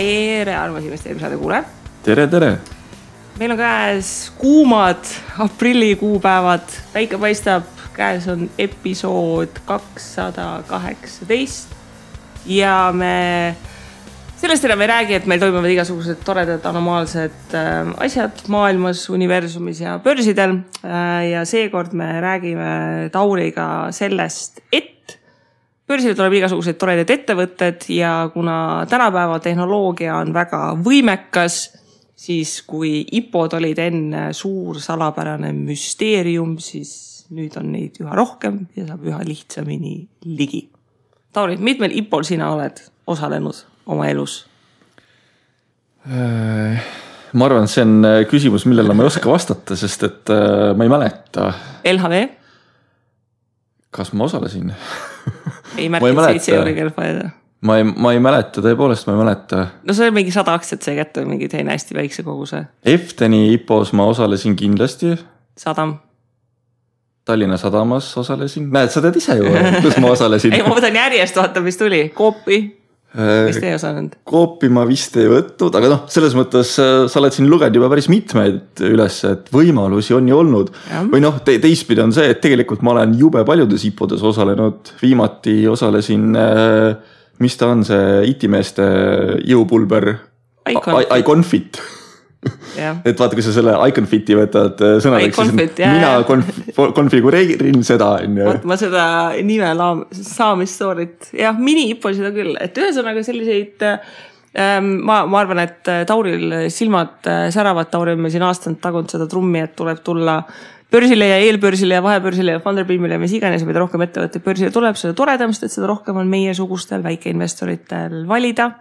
Tere, armas investeerimissaade kuulajad. Tere. Meil on käes kuumad aprillikuupäevad. Päike paistab, käes on episood 218. Ja me sellest enam ei räägi, et meil toimuvad igasugused toredad anomaalsed asjad maailmas, universumis ja börsidel. Ja seekord me räägime Tauriga sellest, et börsile tuleb igasuguseid toredaid ettevõtted ja kuna tänapäeva tehnoloogia on väga võimekas, siis kui IPOd olid enne suur salapärane müsteerium, siis nüüd on neid üha rohkem ja saab üha lihtsamini ligi. Tauri, mitmel IPOl sina oled osalenud oma elus? Ma arvan, et see on küsimus, millele ma ei oska vastata, sest et ma ei mäleta. LHV? Kas ma osalesin? Ei märkid 7 euri kelpaida. Ma ei mäleta, tõepoolest ma ei mäleta. No see on mingi 100 aktsiat see kätte, mingi teine hästi väikse koguse. Efteni IPOs ma osalesin kindlasti. Sadam. Tallinna Sadamas osalesin. Näed, sa tead ise ju, kus ma osalesin. Ei, ma võtan järjest, vaata, mis tuli. Koopi. Vist ei osanud. Koopi ma vist ei võtnud, aga selles mõttes sa oled siin lugenud juba päris mitmeid üles, et võimalusi on ju olnud. Ja. Või teistpidi on see, et tegelikult ma olen jube paljudes IPOdes osalenud. Viimati osalesin, mis ta on see IT-meeste jõupulber iConfit. Et vaata, kui sa selle iConfiti võtad sõnadeks, siis mina konfigureerin seda. Ma seda nime saamistoorit. Jah, mini-IPO seda küll. Et ühesõnaga selliseid, ma arvan, et Tauril silmad säravad. Tauri on meil siin aastanud tagunud seda trummi, et tuleb tulla börsile ja eelbörsile ja vahebörsile ja Funderbeamile ja mis iganes, mida rohkem ettevõtte börsile tuleb, seda toredamist, et seda rohkem on meie sugustel väikeinvestoritel valida.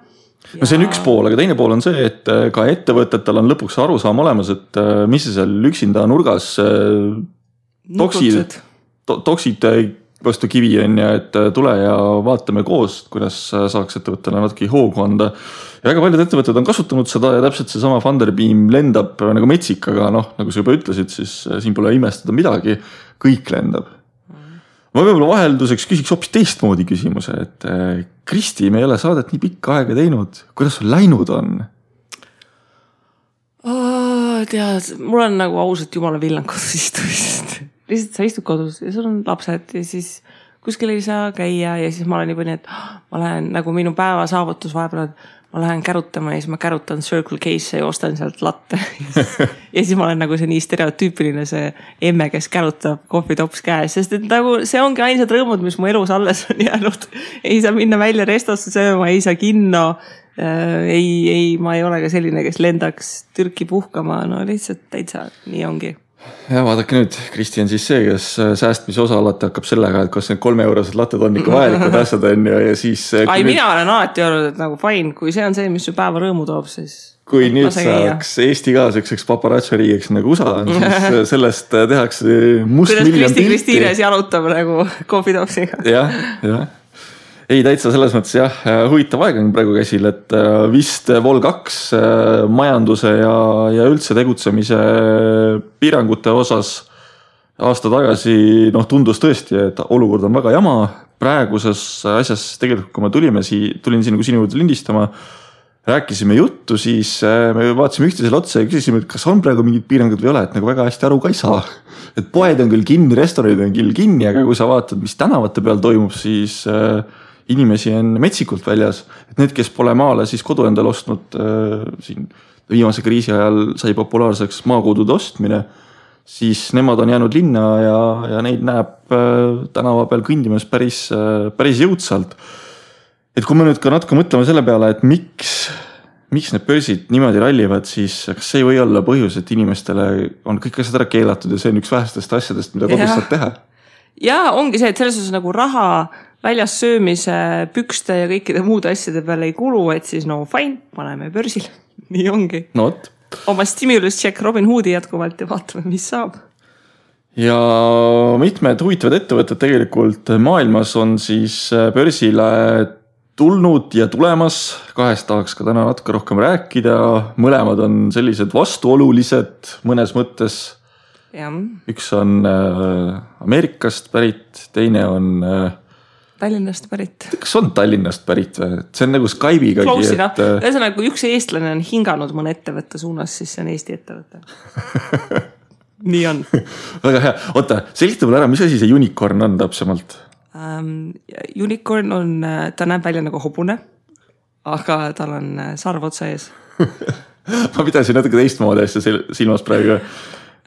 No see on üks pool, aga teine pool on see, et ka ettevõtetel on lõpuks arusaam olemas, et mis see seal üksinda nurgas toksid vastu kivi on ja et tule ja vaatame koos, kuidas saaks ettevõttele natuke hoogu anda. Ja väga paljud ettevõtted on kasutanud seda ja täpselt see sama Funderbeam lendab nagu metsik, aga nagu sa juba ütlesid, siis siin pole imestada midagi, kõik lendab. Ma võib-olla vahelduseks küsiks hoopis teistmoodi küsimuse, et Kristi, me ei ole saadet nii pikka aega teinud. Kuidas sul läinud on? Tead, mul on nagu ausalt jumala villan kodus istumist. Lihtsalt sa istud kodus ja sul on lapsed ja siis kuskil ei saa käia ja siis ma olen juba nii, et ma lähen nagu minu päeva saavutus vahepeal, ma lähen kärutama ja siis ma kärutan Circle K'sse ja ostan sealt latte. Ja siis ma olen nagu see nii stereotüüpiline see emme, kes kärutab kohvitops käes, sest et nagu see ongi ainsad rõõmud, mis mu elus alles on jäänud. Ei saa minna välja restosse sööma, ei saa kinno, ma ei ole ka selline, kes lendaks Türki puhkama, no lihtsalt täitsa nii ongi. Ja vaadake nüüd, Kristi on siis see, kes säästmise osa alati hakkab sellega, et kas need 3 eurosed latted on ikka vajalikud asjad on ja siis... Mina olen alati olnud, et nagu fine, kui see on see, mis su päeva rõõmu toob, siis... Kui nüüd saaks Eesti ka selliseks paparatsoriigiks nagu USA on, siis sellest tehakse must kuidas miljon pilti. Kristiines jalutab nagu kohvitopsiga. Jah. Ei, täitsa selles mõttes jah, huvitav aeg on praegu käsil, et vist Vol 2 majanduse ja üldse tegutsemise piirangute osas aasta tagasi tundus tõesti, et olukord on väga jama. Praeguses asjas tegelikult, kui ma tulin siin nagu sinu juurde lindistama, rääkisime juttu, siis me vaatasime üksteisele otsa ja küsisime, et kas on praegu mingid piirangud või ole, et nagu väga hästi aru ka ei saa. Et poed on küll kinni, restoranid on küll kinni, aga kui sa vaatad, mis tänavate peal toimub, siis... inimesi on metsikult väljas, et need, kes pole maale siis kodu endal ostnud, siin viimase kriisi ajal sai populaarseks maakodude ostmine, siis nemad on jäänud linna ja neid näeb tänava peal kõndimas päris jõudsalt. Et kui me nüüd ka natuke mõtleme selle peale, et miks need börsid niimoodi rallivad, siis kas see ei või olla põhjus, et inimestele on kõik asjad ära keelatud ja see on üks vähestest asjadest, mida kodus saab teha? Ja ongi see, et selles osas nagu raha väljas söömise, pükste ja kõikide muude asjade peale ei kulu, et siis fine, paneme börsil. Nii ongi. Oma stimulus check Robin Hoodi jätkuvalt ja vaatame, mis saab. Ja mitmed huvitavad ettevõtted tegelikult maailmas on siis börsile tulnud ja tulemas. 2 tahaks ka täna natuke rohkem rääkida. Mõlemad on sellised vastuolulised mõnes mõttes. Ja. Üks on Ameerikast pärit, teine on Tallinnast pärit. Kas on Tallinnast pärit või? See on nagu Skype'igagi. Close enough. Ühesõnaga, kui üks eestlane on hinganud mõne ettevõtte suunas, siis see on Eesti ettevõte. Nii on. Väga hea. Oota, selgita mulle ära, mis asi see unicorn on täpsemalt? Unicorn on, ta näeb välja nagu hobune, aga tal on sarv otsa ees. Ma pidasin natuke teistmoodi asja silmas praegu.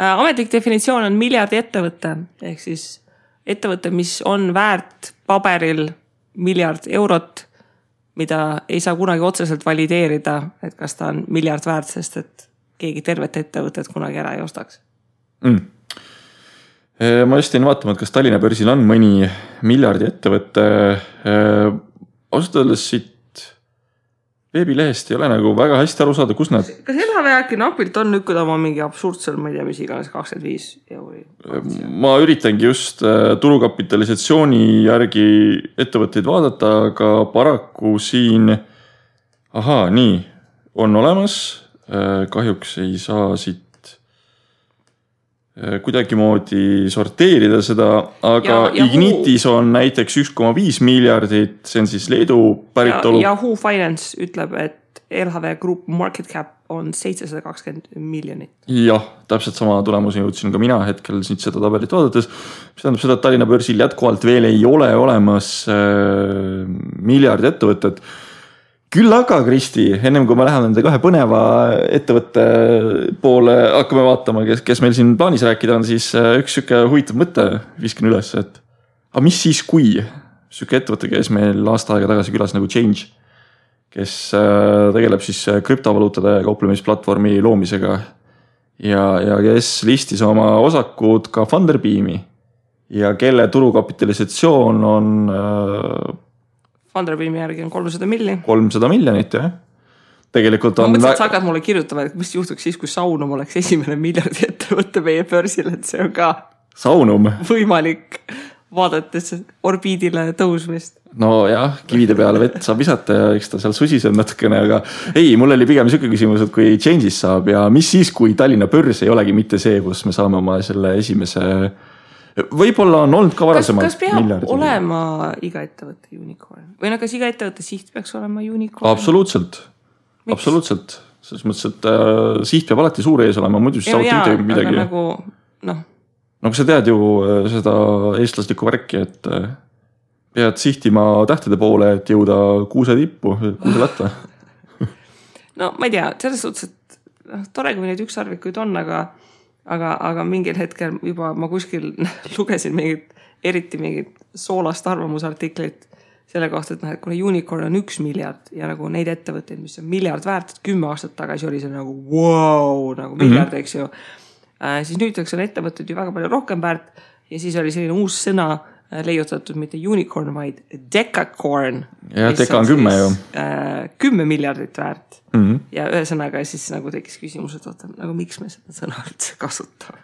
Ametlik definitsioon on miljardi ettevõte, ehk siis ettevõte, mis on väärt paberil miljard eurot, mida ei saa kunagi otseselt valideerida, et kas ta on miljard väärt, sest et keegi tervet ettevõtet kunagi ära ei ostaks. Ma just jäin vaatama, et kas Tallinna börsil on mõni miljardi ettevõte. Ausalt öeldes siit veebilehest ei ole nagu väga hästi aru saada, kus nad... Kas LHV äkki napilt on lükkud oma mingi absurdsel, ma ei tea, mis iganes 25 euri? Ma üritangi just turukapitalisatsiooni järgi ettevõtteid vaadata, aga paraku siin... nii, on olemas. Kahjuks ei saa siit kuidagi moodi sorteerida seda, aga Ignitis on näiteks 1,5 miljardit, see on siis Leedu päritolu. Ja Yahoo Finance ütleb, et LHV Group market cap on 720 miljonit. Jah, täpselt sama tulemusi jõudsin ka mina hetkel siit seda tabelit vaadates. Mis tähendab seda, et Tallinna börsil jätkuvalt veel ei ole olemas miljardi ettevõtted. Küll aga, Kristi, ennem kui me läheme nende kahe põneva ettevõtte poole, hakkame vaatama, kes meil siin plaanis rääkida on, siis üks süke huvitav mõte viskin üles, et aga mis siis, kui süke ettevõte käis meil aasta aega tagasi külas nagu Change, kes tegeleb siis krüptovaluutade kauplemisplatvormi loomisega ja kes listis oma osakud ka Funderbeami ja kelle turukapitalisatsioon on... Funderbeami järgi on 300 miljonit. 300 miljonit, jah. Tegelikult on... Ma mõtlesin, et sa hakkad mulle kirjutama, et mis juhtuks siis, kui Saunum oleks esimene miljardi ettevõtte meie börsil, et see on ka Saunum võimalik vaadates orbiidile tõusmist. No jah, kivide peale vett saab visata ja eks ta seal susiseb natukene, aga ei, mul oli pigem selline küsimus, et kui Change'is saab ja mis siis, kui Tallinna börs ei olegi mitte see, kus me saame oma selle esimese... Võib-olla on olnud ka varasemalt. Kas peab olema iga ettevõtte unicorn? Või kas iga ettevõtte siht peaks olema unicorn? Absoluutselt. Miks? Absoluutselt. Selles mõttes, et siht peab alati suur ees olema, muidu siis saavad midagi. Aga nagu, kui sa tead ju seda eestlaslikku värki, et pead sihtima tähtede poole, et jõuda kuuse tippu, kuuse latta. No ma ei tea, selles suhtes, et tore, kui neid ükssarvikuid on, aga mingil hetkel juba ma kuskil lugesin eriti mingit soolast arvamusartiklit selle kohta, et kuna unicorn on 1 miljard ja nagu neid ettevõtteid, mis on miljard väärt, 10 aastat tagasi oli see nagu wow, nagu miljard, eks ju. Siis nüüdseks on ettevõtted ju väga palju rohkem väärt ja siis oli selline uus sõna leiutatud mitte unicorn, vaid decacorn. Ja deca on 10 ju. 10 miljardit väärt. Ja ühesõnaga siis nagu tekkis küsimus, et oota, nagu miks me seda sõna üldse kasutame?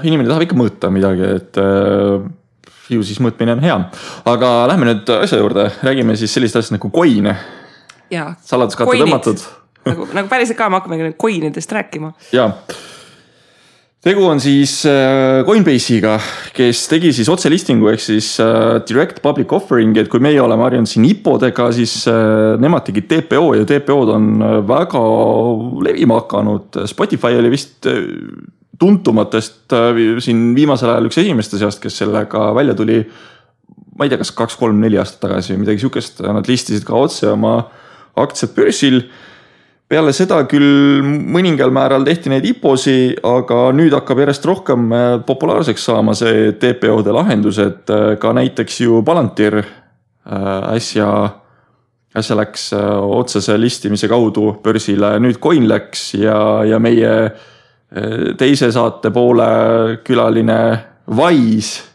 Inimene tahab ikka mõõta midagi, et ju siis mõõtmine on hea. Aga lähme nüüd asja juurde, räägime siis sellist asja nagu coin. Saladuskatte tõmmatud. Nagu päriselt ka me hakkame coinidest rääkima. Jaa. Tegu on siis Coinbase'iga, kes tegi siis otselistingu ehk siis direct public offering, et kui meie oleme harjunud siin IPO-dega, siis nemad tegid TPO ja TPO-d on väga levima hakanud. Spotify oli vist tuntumatest siin viimasel ajal üks esimeste seast, kes sellega välja tuli, ma ei tea, kas 2, 3, 4 aastat tagasi või midagi sihukest, nad listisid ka otse oma aktsiad börsil. Peale seda küll mõningal määral tehti neid IPO-si, aga nüüd hakkab järjest rohkem populaarseks saama see TPO-de lahendus, et ka näiteks ju Palantir äsja läks otsese listimise kaudu börsile, nüüd Coin läks ja meie teise saate poole külaline Wise,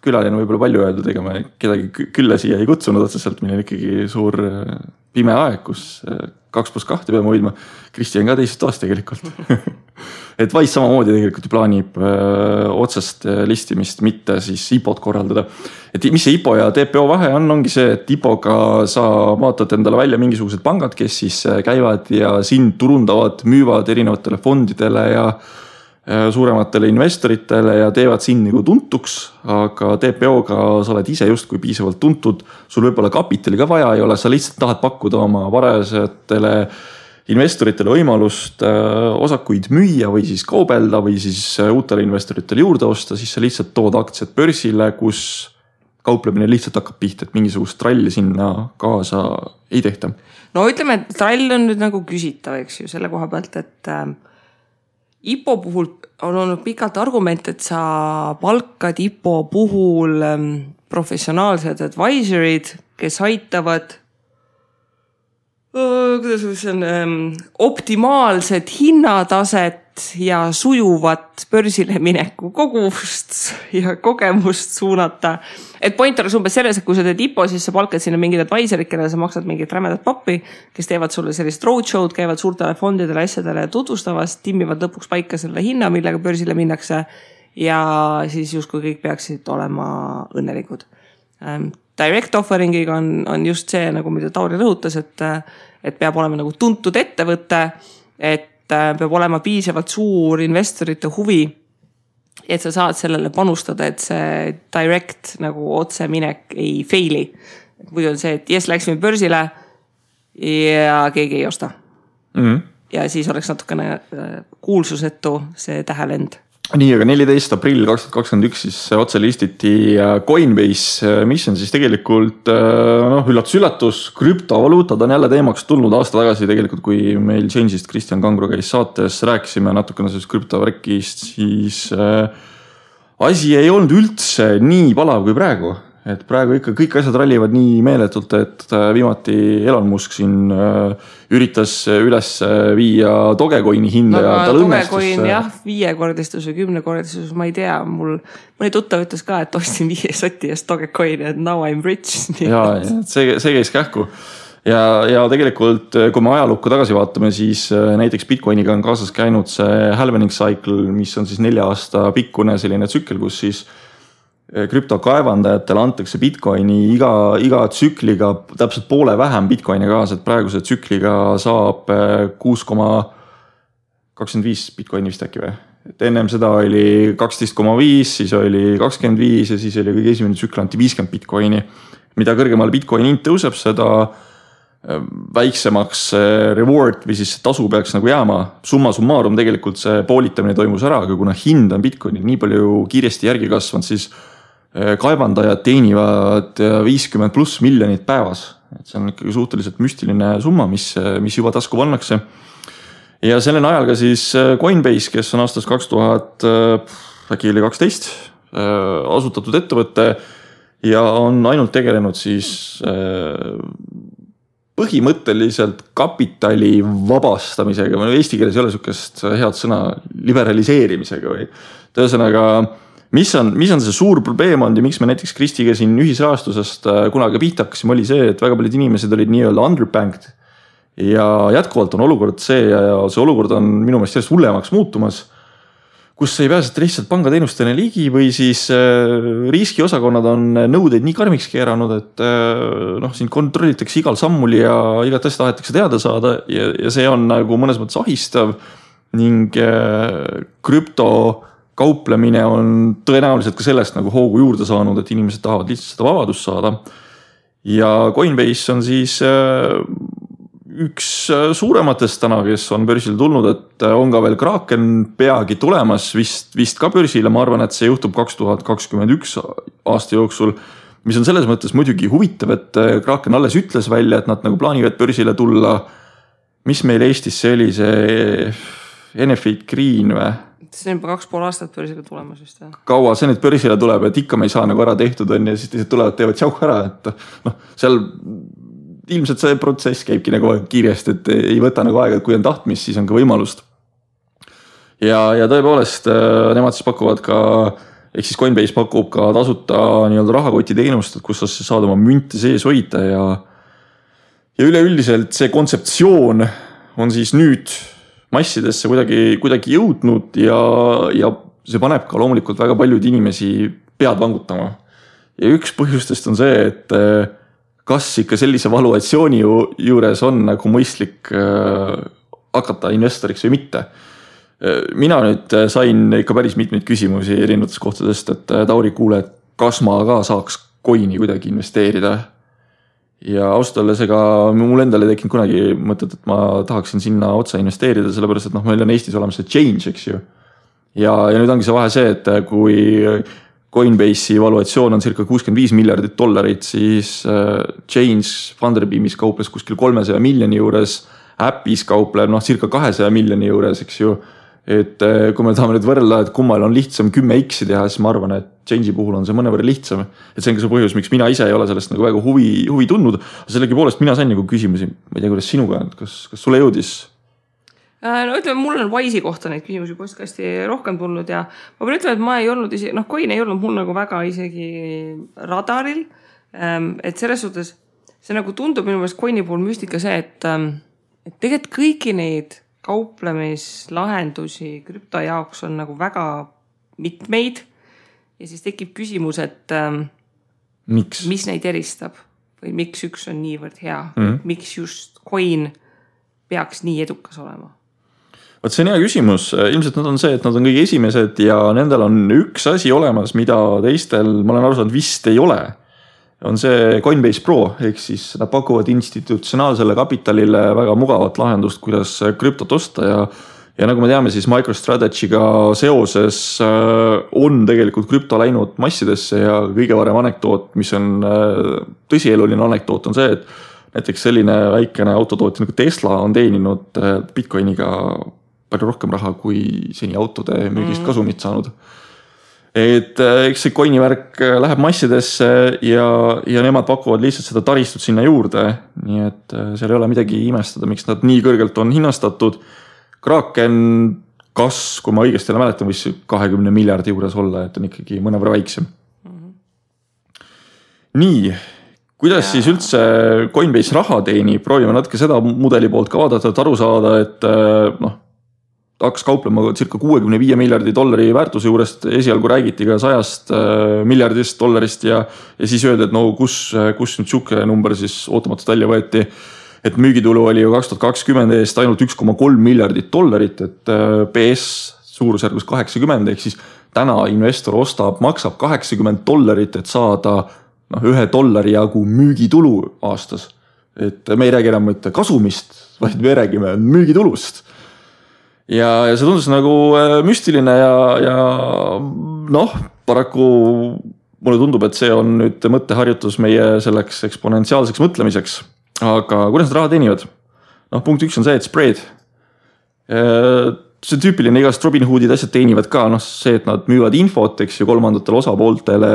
külaline võib-olla palju öeldud, ega me kedagi külla siia ei kutsunud otseselt, meil on ikkagi suur pime aeg, kus 2+2 peame hoidma. Kristi on ka teisest toast tegelikult. Et Wise samamoodi tegelikult plaanib otsest listimist, mitte siis IPO-d korraldada. Et mis see IPO ja TPO vahe ongi see, et IPO-ga sa vaatad endale välja mingisugused pangad, kes siis käivad ja sind turundavad, müüvad erinevatele fondidele ja suurematele investoritele ja teevad sind nagu tuntuks, aga TPO-ga sa oled ise justkui piisavalt tuntud, sul võib-olla kapitali ka vaja ei ole, sa lihtsalt tahad pakkuda oma varajatele investoritele võimalust osakuid müüa või siis kaubelda või siis uutele investoritele juurde osta, siis sa lihtsalt tood aktsiad börsile, kus kauplemine lihtsalt hakkab pihta, et mingisugust tralli sinna kaasa ei tehta. No ütleme, et trall on nüüd nagu küsitav, eks ju, selle koha pealt, et IPO puhul on olnud pikalt argument, et sa palkad IPO puhul professionaalsed advisorid, kes aitavad optimaalset hinnataset ja sujuvat börsile mineku kogust ja kogemust suunata. Et point oleks umbes selles, et kui sa teed IPO, siis sa palkad sinna mingid advisorid, kellele sa maksad mingit rämedat pappi, kes teevad sulle sellist roadshow'd, käivad suurtele fondidele asjadele tutvustavast, timmivad lõpuks paika selle hinna, millega börsile minnakse ja siis justkui kõik peaksid olema õnnelikud. Direct offering'iga on just see, nagu mida Tauri rõhutas, et peab olema nagu tuntud ettevõte, et peab olema piisavalt suur investorite huvi, et sa saad sellele panustada, et see direct nagu otse minek ei faili. Muidu on see, et läksime börsile ja keegi ei osta. Ja siis oleks natukene kuulsusetu see tähelend. Nii, aga 14. aprill 2021 siis otse listiti Coinbase, mis on siis tegelikult üllatus, krüptovaluutad on jälle teemaks tulnud aasta tagasi tegelikult, kui meil Change'ist Kristjan Kangro käis saates, rääkisime natukene sellest krüptovärkist, siis asi ei olnud üldse nii palav kui praegu. Et praegu ikka kõik asjad rallivad nii meeletult, et viimati Elon Musk siin üritas üles viia Dogecoini hinda ja tal õnnestus. Dogecoin jah, 5-kordistus või 10-kordistus, ma ei tea, mõni tuttav ütles ka, et ostsin 5 soti eest Dogecoini, et now I'm rich. Ja see käis kähku. Ja tegelikult, kui me ajalukku tagasi vaatame, siis näiteks Bitcoiniga on kaasas käinud see halvening cycle, mis on siis 4 aasta pikkune selline tsükkel, kus siis krüptokaevandajatele antakse Bitcoini iga tsükliga täpselt poole vähem Bitcoini kaasa, et praeguse tsükliga saab 6,25 Bitcoini vist äkki või? Et ennem seda oli 12,5, siis oli 25 ja siis oli kõige esimene tsükkel anti 50 Bitcoini. Mida kõrgemale Bitcoini hind tõuseb, seda väiksemaks reward või siis tasu peaks nagu jääma. Summa summarum tegelikult see poolitamine toimus ära, aga kuna hind on Bitcoini nii palju kiiresti järgi kasvanud, siis kaevandajad teenivad 50+ miljonit päevas. Et see on ikkagi suhteliselt müstiline summa, mis juba tasku pannakse. Ja sellel ajal ka siis Coinbase, kes on aastast 2012 asutatud ettevõtte ja on ainult tegelenud siis põhimõtteliselt kapitali vabastamisega, eesti keeles ei ole sukest head sõna, liberaliseerimisega või tõesõnaga mis on see suur probleem olnud ja miks me näiteks Kristiga siin ühisrahastusest kunagi pihta hakkasime, oli see, et väga paljud inimesed olid nii-öelda underbanked ja jätkuvalt on olukord see ja see olukord on minu meelest järjest hullemaks muutumas, kus ei pääseta lihtsalt pangateenustele ligi või siis riskiosakonnad on nõudeid nii karmiks keeranud, et siin kontrollitakse igal sammul ja igat asja tahetakse teada saada ja see on nagu mõnes mõttes ahistav ning krüpto kauplemine on tõenäoliselt ka sellest nagu hoogu juurde saanud, et inimesed tahavad lihtsalt seda vabadust saada. Ja Coinbase on siis üks suurematest täna, kes on börsile tulnud, et on ka veel Kraken peagi tulemas vist ka börsile. Ma arvan, et see juhtub 2021 aasta jooksul, mis on selles mõttes muidugi huvitav, et Kraken alles ütles välja, et nad nagu plaanivad börsile tulla. Mis meil Eestis see oli, see Enefit Green või? See on juba 2,5 aastat börsile tulemas vist. Kaua see nüüd börsile tuleb, et ikka me ei saa nagu ära tehtud on ja siis teised tulevad, teevad tšauh ära, et seal ilmselt see protsess käibki nagu kiiresti, et ei võta nagu aega, et kui on tahtmis, siis on ka võimalust. Ja tõepoolest nemad siis pakuvad ka, ehk siis Coinbase pakub ka tasuta nii-öelda rahakoti teenust, kus sa saad oma münte sees hoida ja üleüldiselt see kontseptsioon on siis nüüd massidesse kuidagi jõudnud ja see paneb ka loomulikult väga paljud inimesi pead vangutama. Ja üks põhjustest on see, et kas ikka sellise valuatsiooni juures on nagu mõistlik hakata investoriks või mitte. mina nüüd sain ikka päris mitmeid küsimusi erinevatest kohtadest, et Tauri, kuule, kas ma ka saaks coin'i kuidagi investeerida. Ja ausalt olles, ega mul endale ei tekkinud kunagi mõtet, et ma tahaksin sinna otsa investeerida, sellepärast, et meil on Eestis olemas see Change, eks ju. Ja nüüd ongi see vahe see, et kui Coinbase'i valuatsioon on circa $65 miljardit, siis Change Funderbeamis kauples kuskil 300 miljoni juures, Appis kaupleb circa 200 miljoni juures, eks ju. Et kui me tahame nüüd võrrelda, et kummal on lihtsam 10x teha, siis ma arvan, et Change'i puhul on see mõnevõrra lihtsam. Et see on ka see põhjus, miks mina ise ei ole sellest nagu väga huvi tundnud. Sellegi poolest mina sain nagu küsimusi, ma ei tea, kuidas sinuga, kas sulle jõudis? No ütleme, mul on Wise'i kohta neid küsimusi postkasti rohkem tulnud ja ma pean ütlema, et ma ei olnud isegi, coin ei olnud mul nagu väga isegi radaril. Et selles suhtes see nagu tundub minu meelest coin'i puhul müstika see, et tegelikult kõiki neid kauplemislahendusi krüpto jaoks on nagu väga mitmeid ja siis tekib küsimus, et mis neid eristab või miks üks on niivõrd hea, miks just coin peaks nii edukas olema? Võt see on hea küsimus, ilmselt nad on see, et nad on kõige esimesed ja nendel on üks asi olemas, mida teistel, ma olen aru saanud, vist ei ole. On see Coinbase Pro, ehk siis nad pakuvad institutsionaalsele kapitalile väga mugavat lahendust, kuidas krüptot osta ja nagu me teame, siis MicroStrategy'ga seoses on tegelikult krüpto läinud massidesse ja kõige varem anekdoot, mis on tõsieluline anekdoot, on see, et näiteks selline väikene autotootja nagu Tesla on teeninud Bitcoiniga palju rohkem raha kui seni autode müügist kasumit saanud. Et eks see coin'i värk läheb massidesse ja nemad pakuvad lihtsalt seda taristut sinna juurde, nii et seal ei ole midagi imestada, miks nad nii kõrgelt on hinnastatud. Kraken kui ma õigesti mäletan, võis 20 miljardi juures olla, et on ikkagi mõnevõrra väiksem. Nii, kuidas siis üldse Coinbase raha teeni? Proovime natuke seda mudeli poolt ka vaadata, et aru saada, et hakkas kauplema circa $65 miljardi väärtuse juurest, esialgu räägiti ka $100 miljardist ja siis öeldi, et kus nüüd siuke number siis ootamatult välja võeti, et müügitulu oli ju 2020 eest ainult $1,3 miljardit, et PS suurusjärgus 80, ehk siis täna investor maksab $80, et saada $1 jagu müügitulu aastas. Et me ei räägi enam mitte kasumist, vaid me räägime müügitulust. Ja see tundus nagu müstiline ja paraku mulle tundub, et see on nüüd mõtteharjutus meie selleks eksponentsiaalseks mõtlemiseks. Aga kuidas need raha teenivad? Punkt 1 on see, et spread. See on tüüpiline, igast Robinhoodid asjad teenivad ka, see, et nad müüvad infot, eks ju, kolmandatele osapooltele.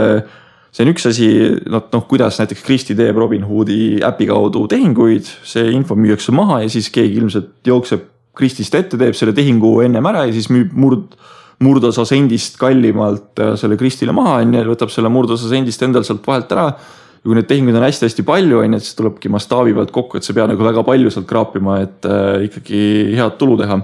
See on üks asi, kuidas näiteks Kristi teeb Robinhoodi äpi kaudu tehinguid, see info müüakse maha ja siis keegi ilmselt jookseb Kristist ette, teeb selle tehingu ennem ära ja siis müüb murdosa sendist kallimalt selle Kristile maha, võtab selle murdosa sendist endal sealt vahelt ära. Ja kui need tehingud on hästi palju, siis tulebki mastaabi pealt kokku, et see pea nagu väga palju sealt kraapima, et ikkagi head tulu teha.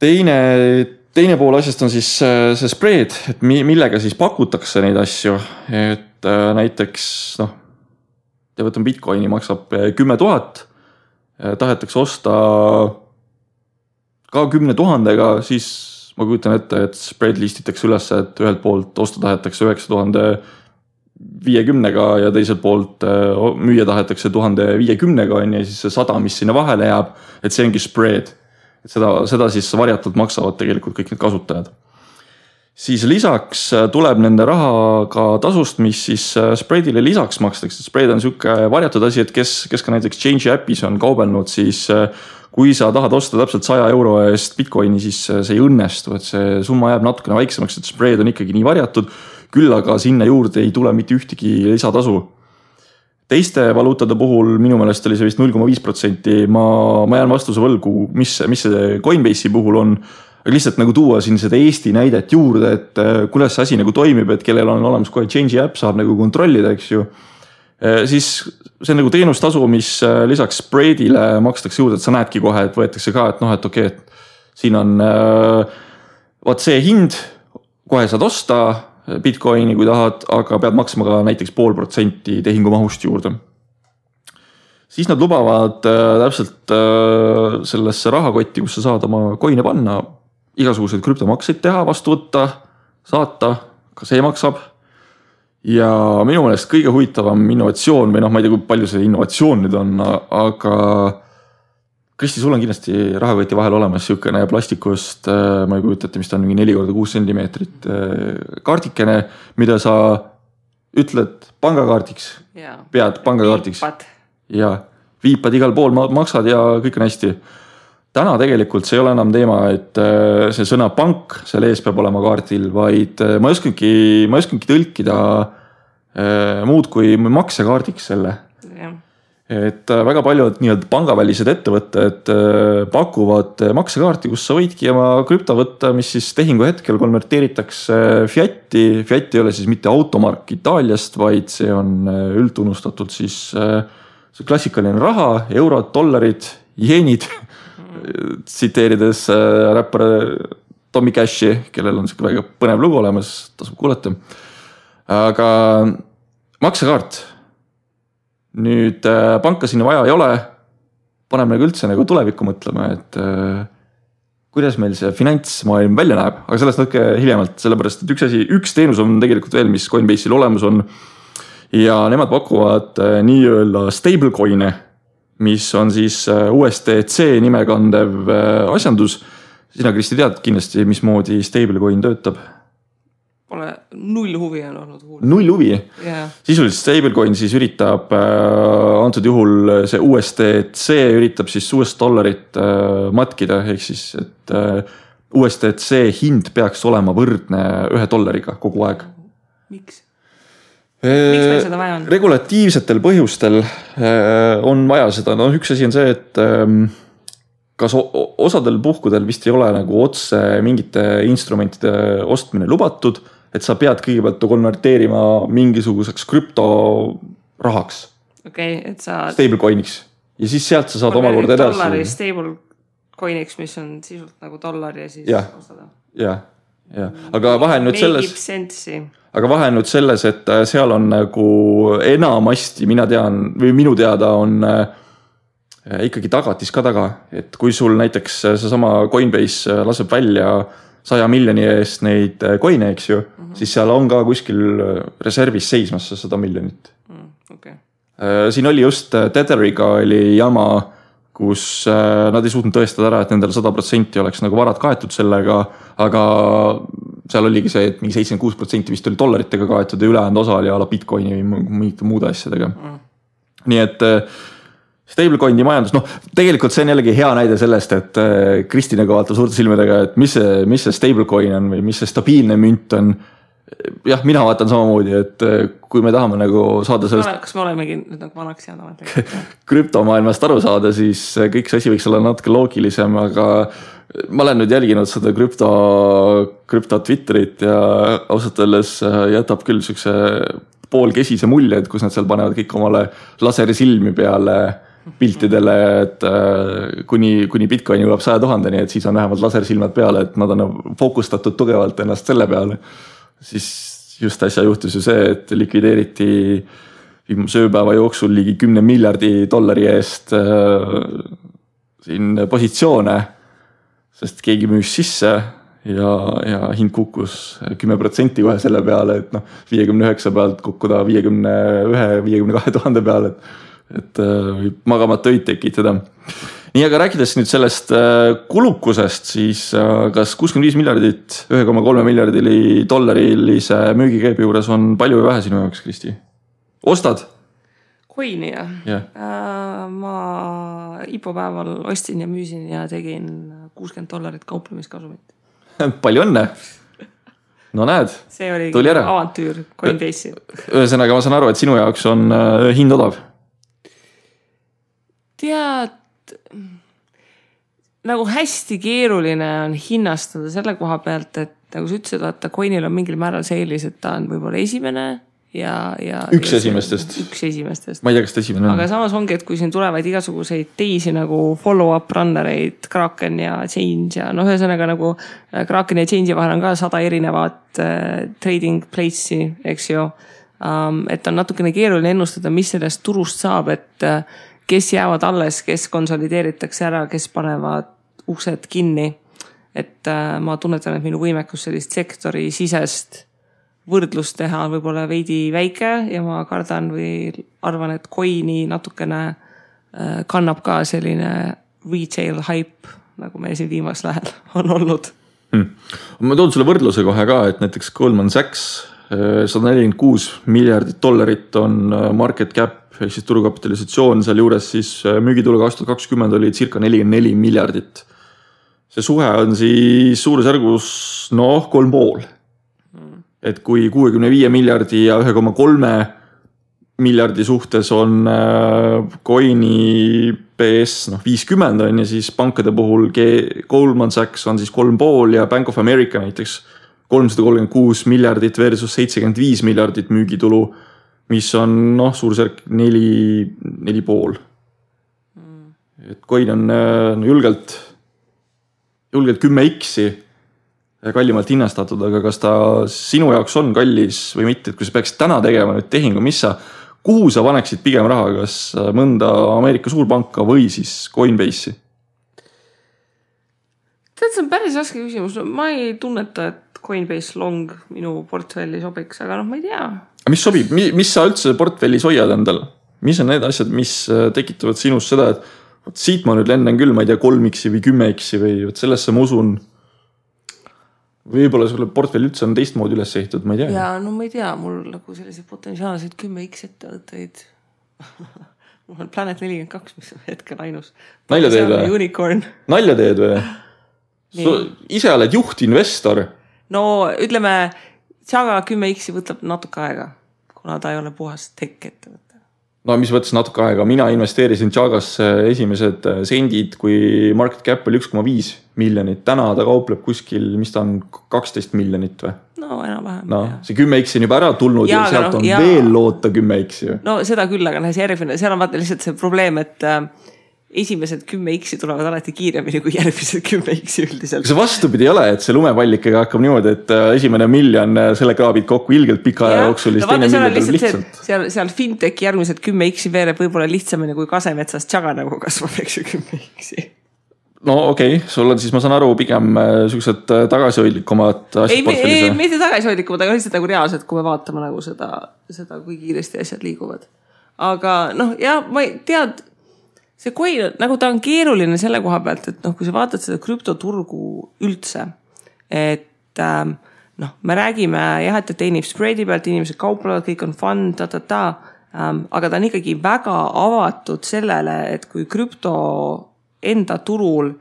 Teine pool asjast on siis see spread, et millega siis pakutakse neid asju, et näiteks, võtan Bitcoini maksab 10 000, tahetakse osta ka 10 000-ga, siis ma kujutan ette, et spread listitakse üles, et ühelt poolt osta tahetakse 9,50-ga ja teiselt poolt müüa tahetakse 1,050-ga ja siis see 100, mis sinna vahele jääb, et see ongi spread. Et seda siis varjatult maksavad tegelikult kõik need kasutajad. Siis lisaks tuleb nende rahaga tasust, mis siis spreadile lisaks makstakse. Spread on siuke varjatud asi, et kes ka näiteks Change appis on kaubelnud, siis kui sa tahad osta täpselt €100 eest Bitcoini, siis see ei õnnestu, et see summa jääb natukene väiksemaks, et spread on ikkagi nii varjatud, küll aga sinna juurde ei tule mitte ühtegi lisatasu. Teiste valuutade puhul minu meelest oli see vist 0,5%, ma jään vastuse võlgu, mis see Coinbase'i puhul on. Aga lihtsalt nagu tuua siin seda Eesti näidet juurde, et kuidas see asi nagu toimib, et kellel on olemas kohe Change app, saab nagu kontrollida, eks ju. Siis see on nagu teenustasu, mis lisaks spreadile makstakse juurde, et sa näedki kohe, et võetakse ka, et okei, et siin on vaat see hind, kohe saad osta Bitcoini, kui tahad, aga pead maksma ka näiteks 0,5% tehingu mahust juurde. siis nad lubavad täpselt sellesse rahakotti, kus sa saad oma coin'e panna, igasuguseid krüptomakseid teha, vastu võtta, saata, ka see maksab. Ja minu meelest kõige huvitavam innovatsioon või ma ei tea, kui palju see innovatsioon nüüd on, aga Kristi, sul on kindlasti rahakoti vahel olemas siukene plastikust, ma ei kujutate, mis ta on, 4x6 sentimeetrit kaardikene, mida sa ütled pangakaardiks, pead pangakaardiks. Ja viipad igal pool, maksad ja kõik on hästi. Täna tegelikult see ei ole enam teema, et see sõna pank seal ees peab olema kaardil, vaid ma ei oskangi tõlkida muud kui maksekaardiks selle. Et väga paljud nii-öelda pangavälised ettevõtted pakuvad maksekaarti, kus sa võidki oma krüpto võtta, mis siis tehingu hetkel konverteeritakse fiati. Fiat ei ole siis mitte automark Itaaliast, vaid see on üldtunnustatud siis see klassikaline raha, eurod, dollarid, jeenid, tsiteerides räppar Tommy Cashi, kellel on siuke väga põnev lugu olemas, tasub kuulata. Aga maksekaart. Nüüd panka sinna vaja ei ole, paneme nagu üldse nagu tulevikku mõtlema, et kuidas meil see finantsmaailm välja näeb, aga sellest natuke hiljemalt, sellepärast, et üks teenus on tegelikult veel, mis Coinbase'il olemas on ja nemad pakuvad nii-öelda stablecoin'e, mis on siis USDC nimekandev asjandus. Sina, Kristi, tead kindlasti, mismoodi stablecoin töötab? Pole null huvi on olnud huul. Null huvi? Yeah. Sisuliselt stablecoin siis üritab, antud juhul see USDC üritab siis US-dollarit matkida, ehk siis, et USDC hind peaks olema võrdne $1 kogu aeg. Miks? Miks meil seda vaja on? Regulatiivsetel põhjustel on vaja seda. No üks asi on see, et kas osadel puhkudel vist ei ole nagu otse mingite instrumentide ostmine lubatud, et sa pead kõigepealt konverteerima mingisuguseks krüptorahaks. Et sa... Stablecoiniks. Ja siis sealt sa saad omakorda edasi. Dollari stablecoiniks, mis on sisult nagu dollar ja siis ostada. Ja. Aga vahe nüüd selles... Aga vahe nüüd selles, et seal on nagu enamasti, minu teada on ikkagi tagatis ka taga. Et kui sul näiteks see sama Coinbase laseb välja 100 miljoni eest neid coin'e, eks ju, siis seal on ka kuskil reservis seismas 100 miljonit. Siin oli just Tetheriga oli jama, kus nad ei suutnud tõestada ära, et nendel 100% oleks nagu varad kaetud sellega, aga seal oligi see, et mingi 76% vist oli dollaritega kaetud ja ülejäänud osa oli ala Bitcoini või mingite muude asjadega. Nii et stablecoini majandus, tegelikult see on jällegi hea näide sellest, et Kristi nagu vaatab suurte silmedega, et mis see stablecoin on või mis see stabiilne münt on. Jah, mina vaatan samamoodi, et kui me tahame nagu saada sellest... Kas me olemegi nüüd nagu vanaks jäänud? Krüptomaailmast aru saada, siis kõik see asi võiks olla natuke loogilisem, aga ma olen nüüd jälginud seda krüpto Twitterit ja ausalt öeldes jätab küll sükse poolkesise mulje, et kus nad seal panevad kõik omale laserisilmi peale piltidele, et kuni Bitcoin jõuab 100 000, nii et siis on vähemalt lasersilmad peale, et nad on fookustatud tugevalt ennast selle peale. Siis just äsja juhtus ju see, et likvideeriti viimase ööpäeva jooksul ligi $10 miljardi eest siin positsioone, sest keegi müüs sisse ja hind kukkus 10% kohe selle peale, et 59 pealt kukkuda 51-52 000 peale, et võib magamata öid tekitada. Nii, aga rääkides nüüd sellest kulukusest, siis kas 65 miljardit 1,3 miljardili dollarilise müügikäibi juures on palju või vähe sinu jaoks, Kristi? Ostad? Coini, jah. Yeah. Ma IPO päeval ostin ja müüsin ja tegin $60 kauplemiskasumit. Palju õnne! No näed, see oli tuli ära. Avantüür Coinbase'i. Ühesõnaga, ma saan aru, et sinu jaoks on hind odav. Tead, nagu hästi keeruline on hinnastada selle koha pealt, et nagu sa ütlesid, vaata, Coinil on mingil määral see eelis, et ta on võib-olla esimene ja üks esimestest. Ma ei tea, kas ta esimene on. Aga samas ongi, et kui siin tulevad igasuguseid teisi nagu follow-up runnereid, Kraken ja Change ja ühesõnaga nagu Kraken ja Change'i vahel on ka 100 erinevat trading place'i, eks ju. Et on natukene keeruline ennustada, mis sellest turust saab, et kes jäävad alles, kes konsolideeritakse ära, kes panevad uksed kinni. Et ma tunnetan, et minu võimekus sellist sektori sisest võrdlust teha on võib-olla veidi väike ja ma kardan või arvan, et coin'i natukene kannab ka selline retail hype, nagu meil siin viimasel ajal on olnud. Ma toon sulle võrdluse kohe ka, et näiteks Goldman Sachs $146 miljardit on market cap ehk siis turukapitalisatsioon, seal juures siis müügitulu 2020 oli circa 44 miljardit. See suhe on siis suurusjärgus 3,5. Et kui 65 miljardi ja 1,3 miljardi suhtes on coin'i PS 50 on ja siis pankade puhul Goldman Sachs on siis 3,5 ja Bank of America näiteks 336 miljardit versus 75 miljardit müügitulu, mis on suurusjärk 4,5. Et coin on julgelt 10x kallimalt hinnastatud, aga kas ta sinu jaoks on kallis või mitte, et kui sa peaksid täna tegema nüüd tehingu, kuhu sa paneksid pigem raha, kas mõnda Ameerika suurpanka või siis Coinbase'i? Tead, see on päris raske küsimus. Ma ei tunneta, et Coinbase long minu portfelli sobiks, aga ma ei tea. Mis sobib? Mis sa üldse portfellis hoiad endal? Mis on need asjad, mis tekitavad sinus seda, et siit ma nüüd lenden küll, ma ei tea, 3x või 10x või sellesse ma usun. Võib-olla sulle portfell üldse on teistmoodi üles ehtud, ma ei tea. Ja ma ei tea, mul nagu selliseid potentsiaalseid 10x ettevõtteid. Mul on Planet 42, mis on hetkel ainus. Nalja teed või? Unicorn. Nalja teed või? Ise oled juhtinvestor. No ütleme, Chaga 10x võtab natuke aega, kuna ta ei ole puhas tech ettevõte. No mis võttes natuke aega, mina investeerisin Chagasse esimesed sendid, kui market cap oli 1,5 miljonit. Täna ta kaupleb kuskil, mis ta on 12 miljonit või? No enam-vähem. No, see 10x on juba ära tulnud ja sealt on veel loota 10x ju. No seda küll, aga see järgmine, seal on vaata lihtsalt see probleem, et esimesed 10x tulevad alati kiiremini kui järgmised 10x üldiselt. See vastupidi ei ole, et see lumepallikega hakkab niimoodi, et esimene miljon selle kraabid kokku ilgelt pika aja jooksul. Seal fintech järgmised 10x veereb võib-olla lihtsamini kui Kasemetsas Chaga nagu kasvab, eks ju 10x. No okei, sul on siis, ma saan aru, pigem sellised tagasihoidlikumad asjad portfellis. Ei, mitte tagasihoidlikumad, aga lihtsalt nagu reaalselt, kui me vaatame nagu seda, kui kiiresti asjad liiguvad. Aga ma ei tead, see coin, nagu ta on keeruline selle koha pealt, et kui sa vaatad seda krüptoturgu üldse, et me räägime jah, et teenib spreadi pealt, inimesed kauplevad, kõik on fun, aga ta on ikkagi väga avatud sellele, et kui krüpto enda turul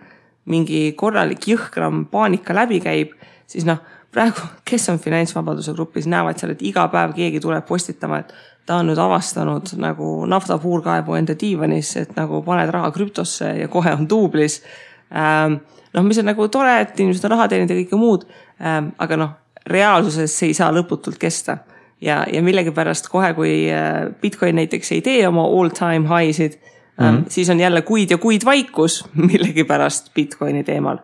mingi korralik jõhkram paanika läbi käib, siis praegu, kes on finantsvabaduse grupis, näevad seal, et iga päev keegi tuleb postitama, et ta on nüüd avastanud nagu naftapuurkaevu enda diivanis, et nagu paned raha krüptosse ja kohe on duublis. Mis on nagu tore, et inimesed on raha teenid ja kõike muud, aga reaalsuses see ei saa lõputult kesta. Ja millegipärast kohe, kui Bitcoin näiteks ei tee oma all-time high'sid, siis on jälle kuid ja kuid vaikus millegipärast Bitcoini teemal.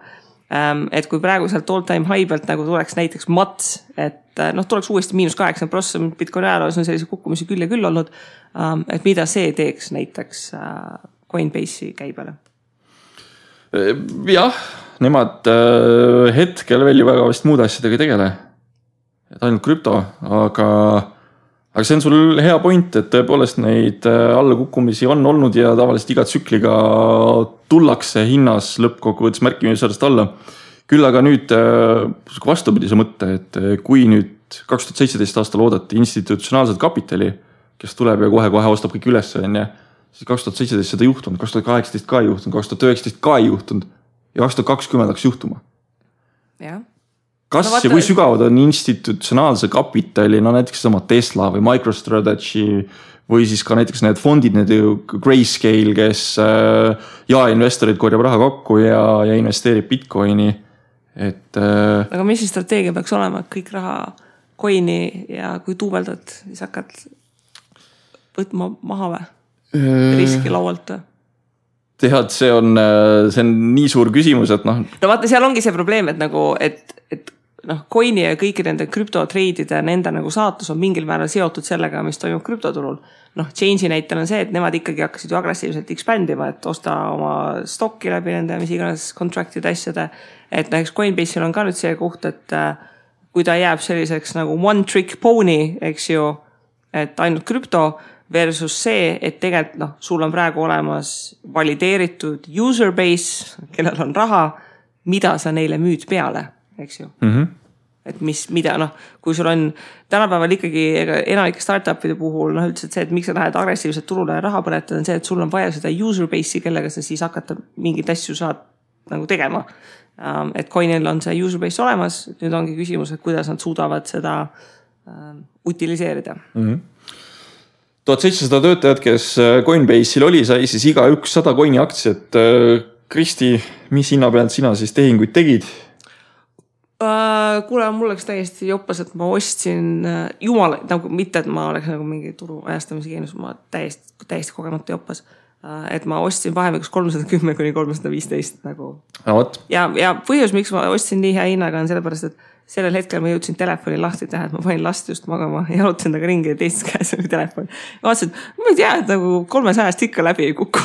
Et kui praegu sealt all-time high pealt nagu tuleks näiteks mats, et tuleks uuesti -8%, Bitcoini ajaloos on sellise kukkumisi küll ja küll olnud, et mida see teeks näiteks Coinbase'i käibele? Jah, nemad hetkel veel ju väga vist muude asjadega ei tegele. Et ainult krüpto, aga see on sul hea point, et tõepoolest neid allakukkumisi on olnud ja tavaliselt iga tsükliga tullakse hinnas lõppkokkuvõttes märkimisväärselt alla. Küll aga nüüd vastupidise mõtte, et kui nüüd 2017 aastal oodati institutsionaalset kapitali, kes tuleb ja kohe ostab kõik üles, siis 2017 seda juhtunud, 2018 ka juhtunud, 2019 ka juhtunud ja 2020 hakkas juhtuma. Jah. Kas ja kui sügavad on institutsionaalse kapitali, näiteks sama Tesla või MicroStrategy või siis ka näiteks need fondid, need Grayscale, kes investorid korjab raha kokku ja investeerib Bitcoini. Aga mis see strateegia peaks olema, et kõik raha coini ja kui tuubeldad, siis hakkad võtma maha või? Riski laualt või? Tead, see on nii suur küsimus, et No vaata, seal ongi see probleem, et coin'i ja kõiki nende krüptotreidide, nende nagu saatus on mingil määral seotud sellega, mis toimub krüptoturul. Change'i näitel on see, et nemad ikkagi hakkasid ju agressiivselt expandima, et osta oma stokki läbi nende, mis iganes contract'ide asjade. Et näiteks Coinbase'il on ka nüüd see koht, et kui ta jääb selliseks nagu one trick pony, eks ju, et ainult krüpto versus see, et tegelikult sul on praegu olemas valideeritud user base, kellel on raha, mida sa neile müüd peale, eks ju. Et mida, kui sul on tänapäeval ikkagi enamike startupide puhul, üldse see, et miks sa lähed agressiivselt turule raha põletada, on see, et sul on vaja seda user base'i, kellega sa siis hakata mingit asju saad nagu tegema. Et Coinil on see user base olemas, nüüd ongi küsimus, et kuidas nad suudavad seda utiliseerida. 1700 töötajad, kes Coinbase'il oli, sai siis iga 100 Coini aktsiat. Kristi, mis hinna pealt sina siis tehinguid tegid? Kuule, mul oleks täiesti joppas, et ma ostsin jumal, nagu mitte, et ma oleks nagu mingi turu ajastamise geenus, ma täiesti kogemata joppas. Et ma ostsin vahemikus 310 kuni 315 nagu. Ja põhjus, miks ma ostsin nii hea hinnaga on sellepärast, et sellel hetkel ma jõudsin telefoni lahti teha, et ma panin last just magama ja jalutasin taga ringi ja teisest käes oli telefon. Ja vaatasin, et ma ei tea, et nagu 300 ikka läbi ei kuku.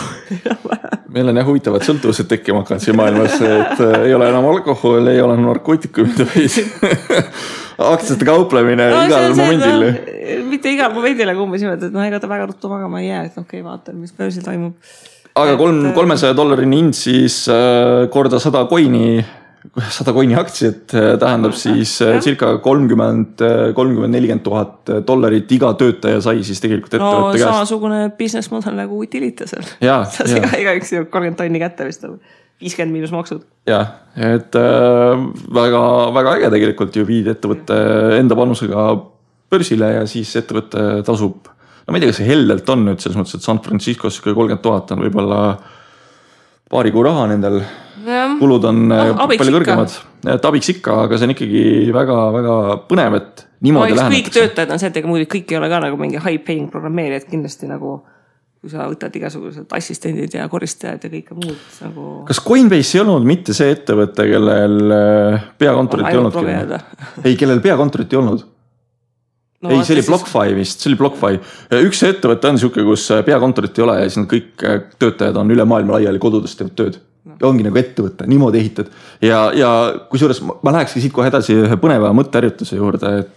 Meil on huvitavad sõltuvused tekkima hakanud siin maailmas, et ei ole enam alkohol, ei ole narkootikumid või aktsiate kauplemine igal momendil. Mitte igal momendil, aga umbes niimoodi, et ega ta väga ruttu magama ei jää, et okei, vaatan, mis börsil toimub. Aga $300 hind siis korda 100 Coini aktsiat tähendab siis circa $30,000 $40,000 iga töötaja sai siis tegelikult ettevõtte käest. Samasugune business model nagu Utilitasel. Iga üks 30 tonni kätte vist 50 miinus maksud. Jah, et väga, väga äge tegelikult ju viid ettevõtte enda panusega börsile ja siis ettevõtte tasub. No ma ei tea, kas see heldelt on nüüd selles mõttes, et San Franciscos 30,000 on võib-olla paari kuu raha nendel. Kulud on palju kõrgemad. Et abiks ikka, aga see on ikkagi väga, väga põnev, et niimoodi lähenetakse. Kõik töötajad on see, et muidu kõik ei ole ka nagu mingi high paying programmeerijad kindlasti nagu, kui sa võtad igasugused assistendid ja koristajad ja kõike muud. Nagu... Kas Coinbase ei olnud mitte see ettevõte, kellel peakontorit ei olnud? Ei, kellel peakontorit ei olnud? No, ei, see oli BlockFi vist, see oli BlockFi. Üks ettevõte on siuke, kus peakontorit ei ole ja siis kõik töötajad on üle maailma laiali kodudest teevad tööd. Ja ongi nagu ettevõte, niimoodi ehitad. Ja kusjuures ma lähekski siit kohe edasi ühe põneva mõtteärjutuse juurde, et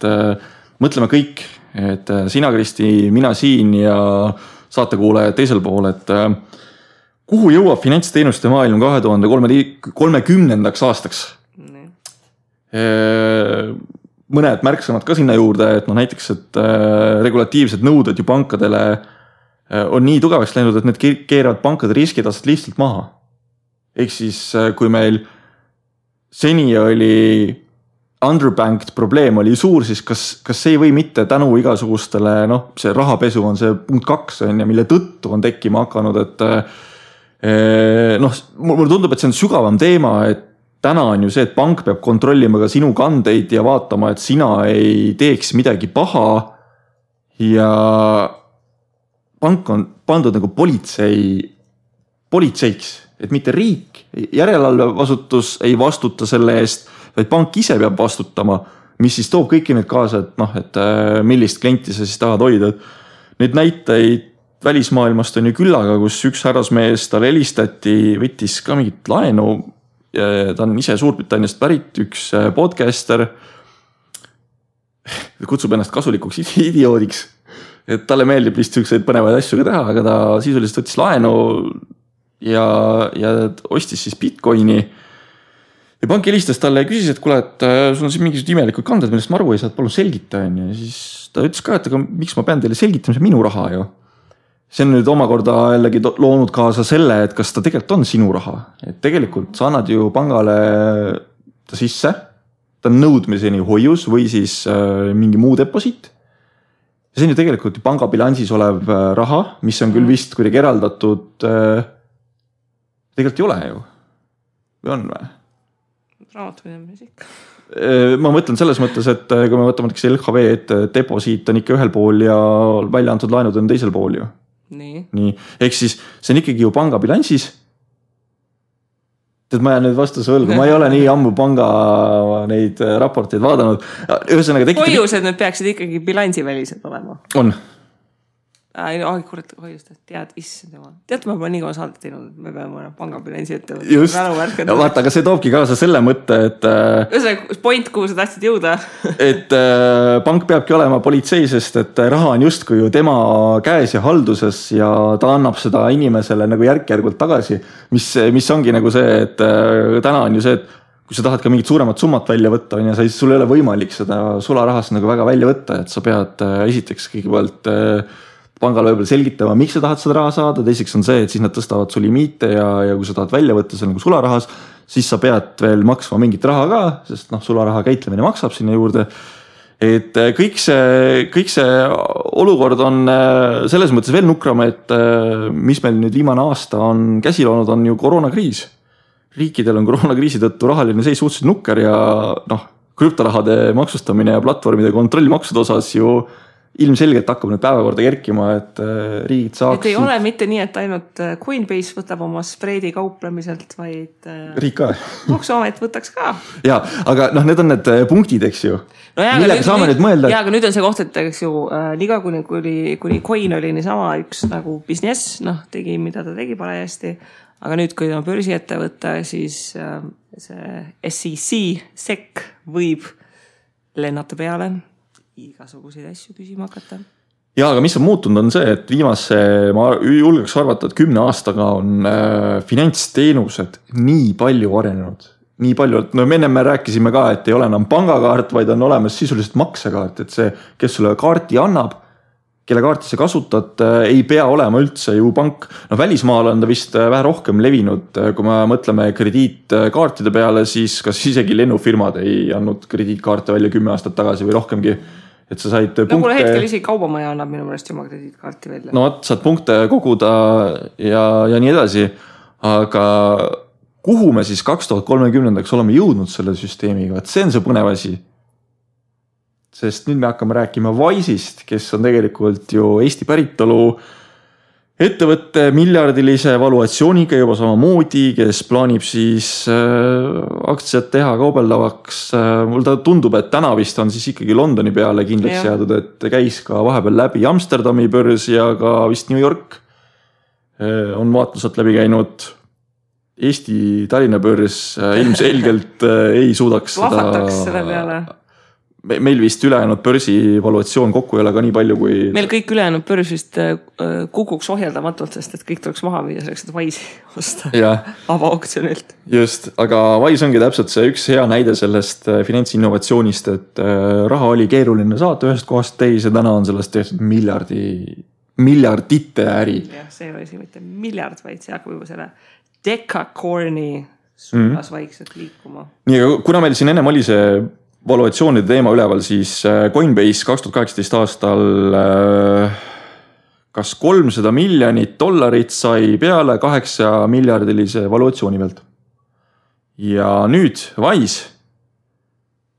mõtleme kõik, et sina, Kristi, mina siin ja saatekuulaja teisel pool, et kuhu jõuab finantsteenuste maailm 2030. aastaks? Mõned märksõnad ka sinna juurde, et näiteks, et regulatiivsed nõuded ju pankadele on nii tugevaks läinud, et need keeravad pankade riskitased lihtsalt maha. Ehk siis, kui meil seni oli underbanked probleem oli suur, siis kas see ei või mitte tänu igasugustele, see rahapesu on see punkt 2, mille tõttu on tekkima hakanud, et mulle tundub, et see on sügavam teema, et täna on ju see, et pank peab kontrollima ka sinu kandeid ja vaatama, et sina ei teeks midagi paha ja pank on pandud nagu politseiks, et mitte riik, järelevalvevasutus ei vastuta selle eest, vaid pank ise peab vastutama, mis siis toob kõiki need kaasa, et millist klienti sa siis tahad hoida. Need näiteid välismaailmast on ju küllaga, kus üks härrasmees tal helistati, võttis ka mingit laenu, ta on ise Suurbritanniast pärit, üks podcaster, kutsub ennast kasulikuks idioodiks, et talle meeldib vist selliseid põnevaid asju ka teha, aga ta sisuliselt võttis laenu ja ostis siis Bitcoini ja pank helistas talle ja küsis, et kuule, et sul on siin mingisugused imelikud kanded, millest ma aru ei saa, palun selgita. Ja siis ta ütles ka, et aga miks ma pean teile selgitama, see minu raha ju. See on nüüd omakorda jällegi loonud kaasa selle, et kas ta tegelikult on sinu raha. Et tegelikult sa annad ju pangale ta sisse, ta on nõudmiseni hoius või siis mingi muu deposiit. Ja see on ju tegelikult panga bilansis olev raha, mis on küll vist kuidagi eraldatud, tegelikult ei ole ju. Või on või? Raamatpidamises ikka. Ma mõtlen selles mõttes, et kui me võtame LHV, et deposiit on ikka ühel pool ja välja antud laenud on teisel pool ju. Nii. Ehk siis see on ikkagi ju panga bilansis. Tead, ma jään nüüd vastuse võlgu, ma ei ole nii ammu panga neid raporteid vaadanud. Ühesõnaga hoiused nüüd peaksid ikkagi bilansivälised olema. On. Kurat, hoiust, tead, issand jumal. Tead, ma nii kaua saadet teinud, et me peame pangabilansi ette võtta. Just, ja vaata, aga see toobki kaasa selle mõtte, et ühesõnaga, point, kuhu sa tahtsid jõuda. Et pank peabki olema politsei, sest et raha on justkui ju tema käes ja halduses ja ta annab seda inimesele nagu järk-järgult tagasi, mis ongi nagu see, et täna on ju see, et kui sa tahad ka mingit suuremat summat välja võtta, ja sul ei ole võimalik seda sularahast nagu väga välja võtta, et sa pead esiteks kõigepealt pangal võib-olla selgitama, miks sa tahad seda raha saada, teiseks on see, et siis nad tõstavad su limiite ja kui sa tahad välja võtta see nagu sularahas, siis sa pead veel maksma mingit raha ka, sest sularaha käitlemine maksab sinna juurde. Et kõik see olukord on selles mõttes veel nukram, et mis meil nüüd viimane aasta on käsil olnud, on ju koroonakriis. Riikidel on koroonakriisi tõttu rahaline seis suhteliselt nukker ja krüptorahade maksustamine ja platvormide kontrollmaksude osas ju ilmselgelt hakkab nüüd päevakorda kerkima, et riigid saaksid... Et ei ole mitte nii, et ainult Coinbase võtab oma spreedi kauplemiselt, vaid riik ka. Maksuamet võtaks ka. Ja, aga need on need punktid, eks ju. No jaa, aga nüüd on see koht, et eks ju liga kuni Coin oli niisama üks nagu business, tegi, mida ta tegi parajasti, aga nüüd, kui ta börsi ette võtta, siis see SEC võib lennata peale igasuguseid asju küsima hakata. Ja, aga mis on muutunud on see, et ma julgeks arvata, et 10 aastaga on finantsteenused nii palju arenenud. Nii palju, et me rääkisime ka, et ei ole enam pangakaart, vaid on olemas sisuliselt maksekaart, et see, kes sulle kaarti annab, kelle kaarti sa kasutad, ei pea olema üldse ju pank. Välismaal on ta vist vähe rohkem levinud, kui me mõtleme krediitkaartide peale, siis kas isegi lennufirmad ei andnud krediitkaarte välja 10 aastat tagasi või rohkemgi. Et sa said punkte... Kuule hetkel isegi kaubamaja annab minu meelest oma krediitkaarti välja. Saad punkte koguda ja nii edasi, aga kuhu me siis 2030 oleme jõudnud selle süsteemiga, et see on see põnev asi. Sest nüüd me hakkame rääkima Wise'ist, kes on tegelikult ju Eesti päritolu ettevõtte miljardilise valuatsiooniga juba samamoodi, kes plaanib siis aktsiad teha kaubeldavaks. Mul ta tundub, et täna vist on siis ikkagi Londoni peale kindlaks jäädud, et käis ka vahepeal läbi Amsterdami börs ja ka vist New York on vaatlused läbi käinud. Eesti Tallinna börs ilmselgelt ei suudaks Lahvataks selle peale. Meil vist ülejäänud börsi valuatsioon kokku ei ole ka nii palju kui... Meil kõik ülejäänud börs vist kukuks ohjeldamatult, sest et kõik tuleks maha viia selleks, et Wise'i osta avaauktsionilt. Just, aga Wise ongi täpselt see üks hea näide sellest finantsinnovatsioonist, et raha oli keeruline saata ühest kohast teise, täna on sellest tehtud miljardite äri. Jah, see oli siin mitte miljard, vaid see hakkab juba selle decacorni suunas vaikselt liikuma. Nii, kuna meil siin ennem oli see valuatsioonide teema üleval, siis Coinbase 2018 aastal kas $300 miljonit sai peale 8 miljardilise valuatsiooni pealt. Ja nüüd Wise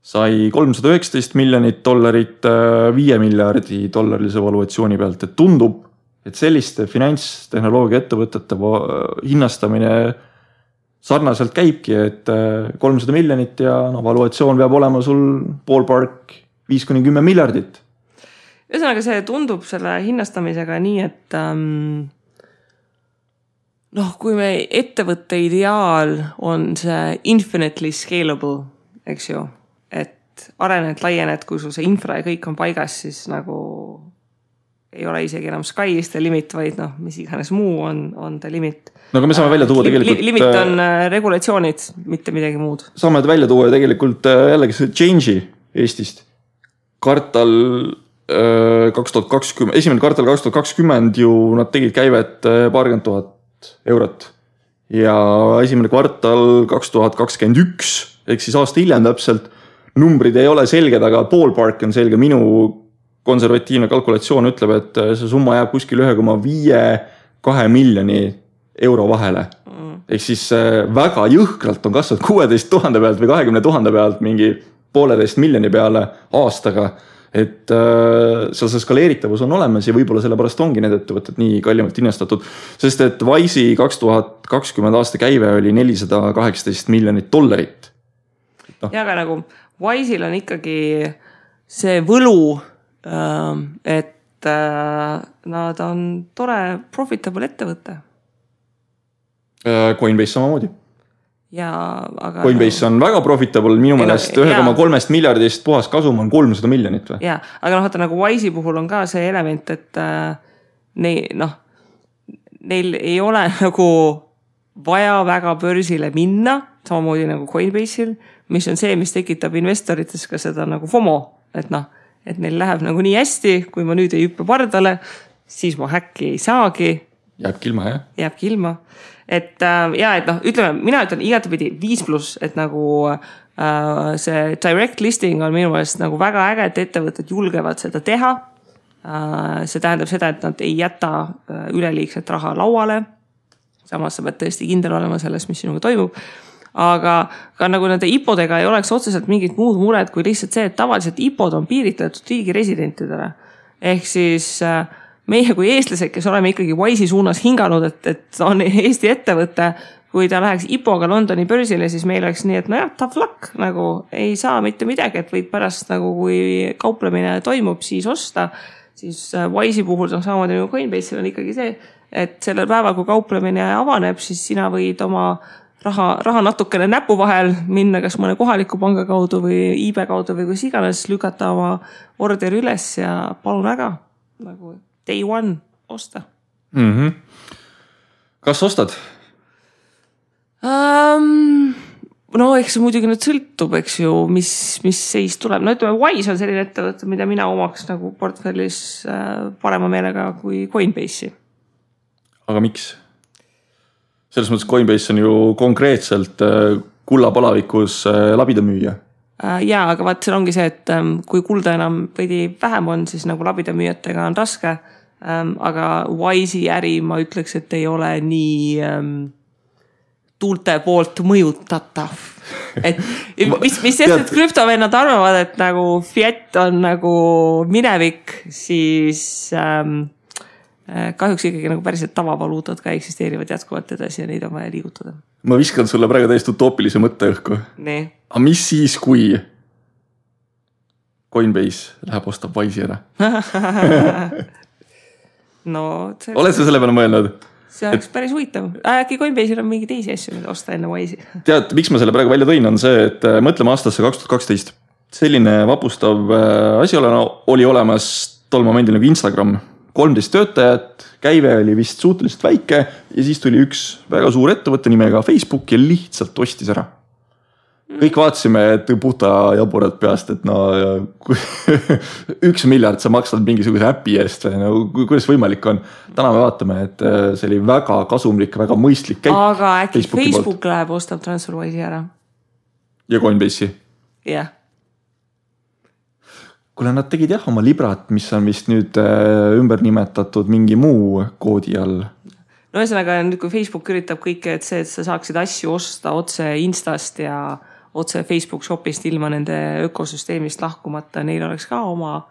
sai $319 miljonit $5 miljardi dollarilise valuatsiooni pealt. Et tundub, et selliste finantstehnoloogia ettevõtete hinnastamine sarnaselt käibki, et 300 miljonit ja valuatsioon peab olema sul ballpark 5-10 miljardit. Ühesõnaga see tundub selle hinnastamisega nii, et kui me ettevõtte ideaal on see infinitely scalable, eks ju, et arened, laiened, kui sul see infra ja kõik on paigas, siis nagu ei ole isegi enam sky is the limit, vaid mis iganes muu on the limit. No aga me saame välja tuua tegelikult... Limit on regulatsioonid, mitte midagi muud. Saame välja tuua tegelikult jällegi see change'i Eestist. Esimene kvartal 2020 ju nad tegid käivet 20 000 eurot. Ja esimene kvartal 2021, ehk siis aasta hiljem täpselt, numbrid ei ole selged, aga ballpark on selge. Minu konservatiivne kalkulatsioon ütleb, et see summa jääb kuskil 1,5-2 miljoni euro vahele. Ehk siis väga jõhkralt on kasvanud 16 000 pealt või 20 000 pealt mingi 1,5 miljoni peale aastaga. et seal see skaleeritavus on olemas ja võib-olla sellepärast ongi need ettevõtted nii kallimalt investatud, sest et Wise'i 2020 aasta käive oli $418 miljonit. Ja aga nagu Wise'il on ikkagi see võlu, et nad on tore profitable ettevõte. Coinbase samamoodi. Ja, aga Coinbase on väga profitable, minu meelest 1,3 miljardist puhas kasum on 300 miljonit. Või? Ja, aga vaata nagu Wise'i puhul on ka see element, et neil ei ole nagu vaja väga börsile minna, samamoodi nagu Coinbase'il, mis on see, mis tekitab investorites ka seda nagu FOMO, et et neil läheb nagu nii hästi, kui ma nüüd ei hüppe pardale, siis ma häkki ei saagi. Jääbki ilma, jah? Jääbki ilma. Et ütleme, mina ütlen igatepidi 5+, et nagu see direct listing on minu meelest nagu väga äge, et ettevõtted julgevad seda teha. See tähendab seda, et nad ei jäta üleliigset raha lauale. Samas sa pead tõesti kindel olema selles, mis sinuga toimub. Aga ka nagu nende IPO-dega ei oleks otseselt mingit muud mured, kui lihtsalt see, et tavaliselt IPO-d on piiritletud riigi residentidele. Ehk siis meie kui eestlased, kes oleme ikkagi Wise'i suunas hinganud, et on Eesti ettevõte, kui ta läheks IPO-ga Londoni börsile, siis meil oleks nii, et tough luck, nagu ei saa mitte midagi, et võid pärast nagu kui kauplemine toimub, siis osta. Siis Wise'i puhul on samamoodi nagu Coinbase'il on ikkagi see, et sellel päeval, kui kauplemine avaneb, siis sina võid oma raha natukene näpu vahel minna kas mõne kohaliku panga kaudu või eBay kaudu või kus iganes lükata oma orderi üles ja palun väga nagu day one osta. Mm-hmm. Kas ostad? No eks see muidugi nüüd sõltub, eks ju, mis seis tuleb. No ütleme, Wise on selline ettevõte, mida mina omaks nagu portfellis parema meelega kui Coinbase'i. Aga miks? Selles mõttes Coinbase on ju konkreetselt kullapalavikus labidamüüja. Jaa, aga vaat seal ongi see, et kui kulda enam veidi vähem on, siis nagu labidamüüjatega on raske. Aga Wise'i äri ma ütleks, et ei ole nii tuulte poolt mõjutatav. Et mis sest, et krüptovennad arvavad, et nagu fiat on nagu minevik, siis kahjuks ikkagi nagu päriselt tavavaluutad ka eksisteerivad jätkuvalt edasi ja neid on vaja liigutada. Ma viskan sulle praegu täiesti utoopilise mõtte õhku. Nii. Aga mis siis, kui Coinbase läheb ostab Wise'i ära? Oled sa selle peale mõelnud? See oleks päris huvitav. Äkki Coinbase'il on mingi teisi asju, mida osta enne Wise'i. Tead, miks ma selle praegu välja tõin, on see, et mõtleme aastasse 2012. Selline vapustav asi oli olemas tol momendil nagu Instagram. 13 töötajat, käive oli vist suhteliselt väike ja siis tuli üks väga suur ettevõtte nimega Facebook ja lihtsalt ostis ära. Kõik vaatasime, et puhta jaburad peast, et 1 miljard sa maksad mingisuguse äpi eest või kuidas võimalik on. Täna me vaatame, et see oli väga kasumlik, väga mõistlik käik. Aga äkki Facebook läheb ostab TransferWise'i ära? Ja Coinbase'i? Jah. Kuule, nad tegid oma librat, mis on vist nüüd ümber nimetatud mingi muu koodi all. No ühesõnaga, nüüd kui Facebook üritab kõike, et sa saaksid asju osta otse Instast ja otse Facebook Shopist ilma nende ökosüsteemist lahkumata, neil oleks ka oma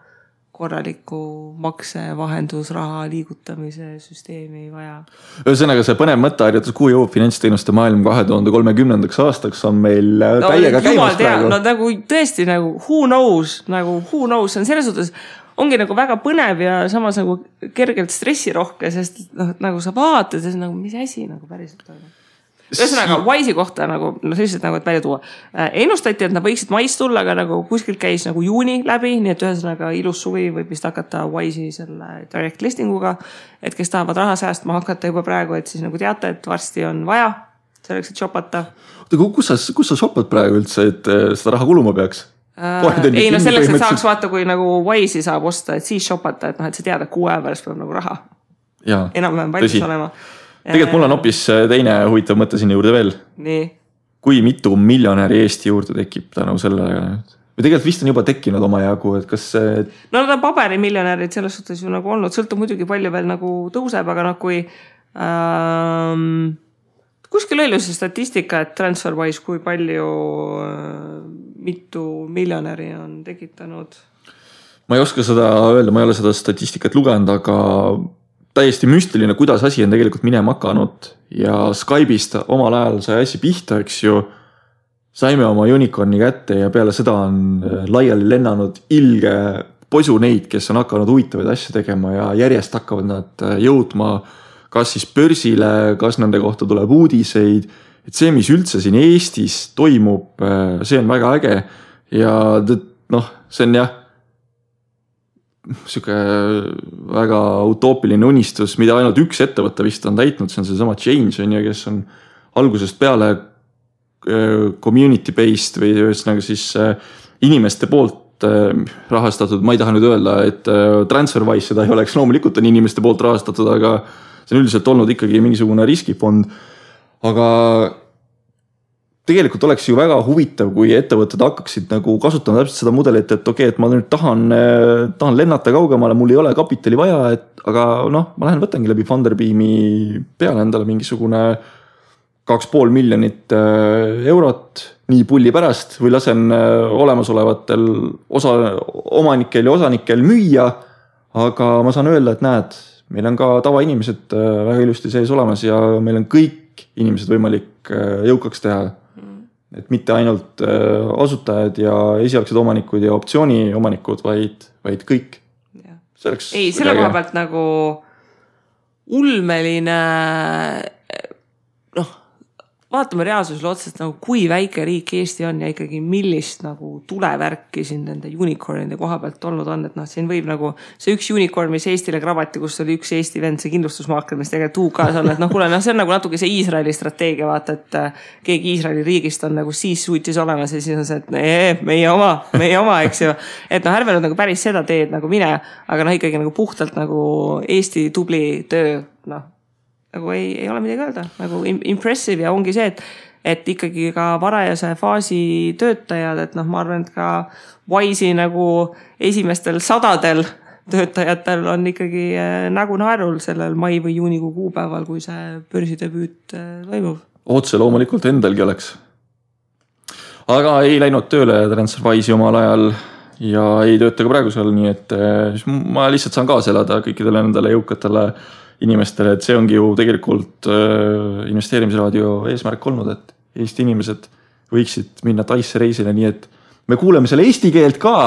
korraliku makse, vahendusraha liigutamise süsteemi vaja. Ühesõnaga, see põnev mõtteharjutus, kuhu jõuab finantsteenuste maailm 2030. aastaks on meil täiega käimas praegu. No nagu tõesti, nagu who knows, see on selles suhtes, ongi nagu väga põnev ja samas nagu kergelt stressirohke, sest nagu sa vaatad ja nagu mis asi nagu päriselt toimub. Ühesõnaga, Wise'i kohta nagu, selliselt nagu, et välja tuua. Ennustati, et nad võiksid mais tulla, aga nagu kuskilt käis nagu juuni läbi, nii et ühesõnaga ilus suvi võib vist hakata Wise'i selle direct listinguga, et kes tahavad raha säästma hakata juba praegu, et siis nagu teate, et varsti on vaja selleks, et shopata. Kus sa shopad praegu üldse, et seda raha kuluma peaks? Ei, selleks, et saaks vaata, kui nagu Wise'i saab osta, et siis shopata, et sa tead, et 6 aja pärast peab nagu raha. Enam-vähem valmis olema. Tegelikult mul on hoopis teine huvitav mõte sinna juurde veel. Nii. Kui mitu miljonäri Eesti juurde tekib tänu sellele? Või tegelikult vist on juba tekkinud oma jagu, et kas see... No nad on paberimiljonärid selles suhtes ju nagu olnud. Sõltub muidugi palju veel nagu tõuseb, aga kui kuskil oli see statistika, et TransferWise kui palju mitu miljonäri on tekitanud... ma ei oska seda öelda, ma ei ole seda statistikat lugenud, aga täiesti müstiline, kuidas asi on tegelikult minema hakanud ja Skype'ist omal ajal sai asi pihta, eks ju. Saime oma unicorni kätte ja peale seda on laiali lennanud ilge posu neid, kes on hakanud huvitavaid asju tegema ja järjest hakkavad nad jõudma kas siis börsile, kas nende kohta tuleb uudiseid. Et see, mis üldse siin Eestis toimub, see on väga äge ja see on jah, siuke väga utoopiline unistus, mida ainult üks ettevõte vist on täitnud, see on see sama Change, kes on algusest peale community-based või ühesõnaga siis inimeste poolt rahastatud, ma ei taha nüüd öelda, et TransferWise seda ei oleks, loomulikult on inimeste poolt rahastatud, aga see on üldiselt olnud ikkagi mingisugune riskifond, aga tegelikult oleks ju väga huvitav, kui ettevõtted hakkaksid nagu kasutama täpselt seda mudelit, et okei, et ma nüüd tahan lennata kaugemale, mul ei ole kapitali vaja, aga ma lähen võtangi läbi Funderbeami peale endale mingisugune 2,5 miljonit eurot nii pulli pärast või lasen olemasolevatel omanikel ja osanikel müüa, aga ma saan öelda, et näed, meil on ka tavainimesed väga ilusti sees olemas ja meil on kõik inimesed võimalik jõukaks teha. Et mitte ainult asutajad ja esialgsed omanikud ja optsiooni omanikud, vaid kõik. Ei, selle koha pealt nagu ulmeline, vaatame reaalsusele otsast nagu kui väike riik Eesti on ja ikkagi millist nagu tulevärki siin nende unicornide koha pealt olnud on, et siin võib nagu see üks unicorn, mis Eestile krabati, kus oli üks Eesti vend, see kindlustusmaakler, mis tegelikult UK-s on, et kuule, see on nagu natuke see Iisraeli strateegia, vaata, et keegi Iisraeli riigist on nagu siis suutis olemas ja siis on see, et meie oma, eks ju. Et ärme nüüd nagu päris seda teed nagu mine, aga ikkagi nagu puhtalt nagu Eesti tubli töö, nagu ei ole midagi öelda, nagu impressive ja ongi see, et ikkagi ka varajase faasi töötajad, et ma arvan, et ka Wise'i nagu esimestel 100 töötajatel on ikkagi nägu naerul sellel mai või juunikuu kuupäeval, kui see börsidebüüt toimub. Otse loomulikult endalgi oleks. Aga ei läinud tööle TransferWise'i omal ajal ja ei tööta ka praegu seal, nii et ma lihtsalt saan kaasa elada kõikidele nendele jõukatele inimestele, et see ongi ju tegelikult investeerimisraadio eesmärk olnud, et Eesti inimesed võiksid minna Taisse reisile, nii et me kuuleme selle eesti keelt ka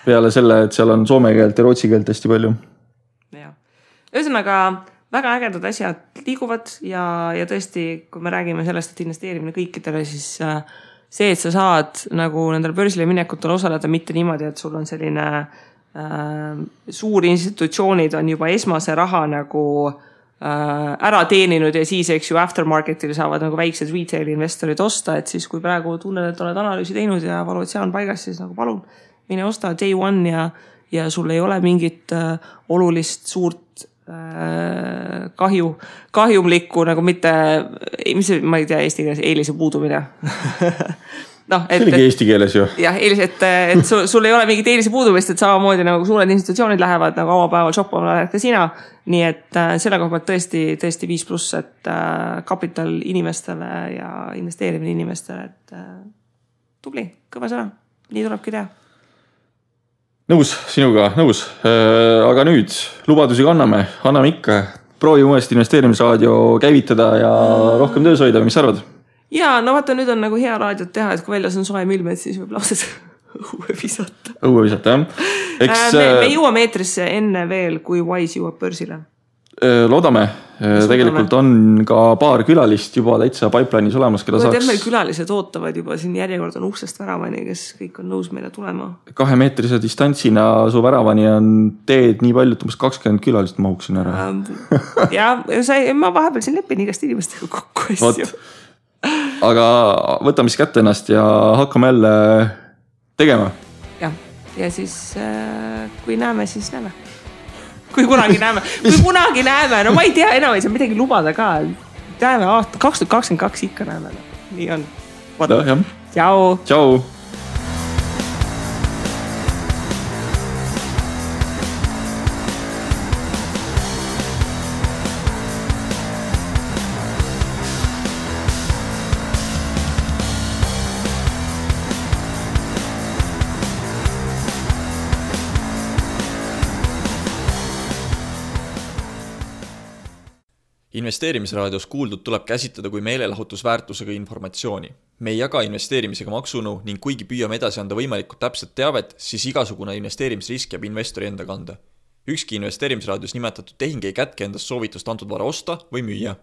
peale selle, et seal on soome keelt ja rootsi keelt hästi palju. Ja. Ühesõnaga, väga ägedad asjad liiguvad ja tõesti, kui me räägime sellest, et investeerimine kõikidele, siis see, et sa saad nagu nendel börsile minekutel osaleda mitte niimoodi, et sul on selline suur institutsioonid on juba esmase raha nagu ära teeninud ja siis, eks ju, aftermarketil saavad nagu väiksed retail investorid osta, et siis kui praegu tunned, et oled analüüsi teinud ja valuatsioon paigas, siis nagu palun, mine osta day one ja sul ei ole mingit olulist suurt kahjumlikku nagu mitte, ma ei tea eesti keeles, eelise puudumine see oligi eesti keeles ju. Jah, et sul ei ole mingit eelise puudumist, et samamoodi nagu suured institutsioonid lähevad nagu avapäeval shoppama ka sina. Nii et selle koha pealt tõesti 5+, et kapital inimestele ja investeerimine inimestele, et tubli, kõva sõna. Nii tulebki teha. Nõus, sinuga, nõus. Aga nüüd lubadusi anname ikka. Proovi uuesti investeerimisraadio käivitada ja rohkem töös hoida, mis arvad? Ja, vaata, nüüd on nagu hea raadiot teha, et kui väljas on soe ilmed, siis võib lauses õue visata. Õue visata, jah. Me jõuame eetrisse enne veel, kui Wise jõuab börsile. Loodame. Tegelikult on ka paar külalist juba täitsa pipeline'is olemas, keda saaks... Meil külalised ootavad juba, siin järjekord on uksest väravani, kes kõik on nõus meile tulema. 2-meetrise distantsina su väravani on teed nii palju, et umbes 20 külalist mahuksin ära. Ja, ma vahepeal siin lepin igast inimestega kokku asju. Aga võtame siis kätte ennast ja hakkame jälle tegema. Ja siis kui näeme, siis näeme. Kui kunagi näeme. No ma ei tea, enam ei saa midagi lubada ka. Näeme aasta 2022 ikka näeme. Nii on. Tšau. Investeerimisraadios kuuldud tuleb käsitleda kui meelelahutusväärtusega informatsiooni. Me ei jaga investeerimisega maksunu ning kuigi püüame edasi anda võimalikult täpset teavet, siis igasugune investeerimisrisk jääb investori enda kanda. Ükski investeerimisraadios nimetatud tehing ei kätke endast soovitust antud vara osta või müüa.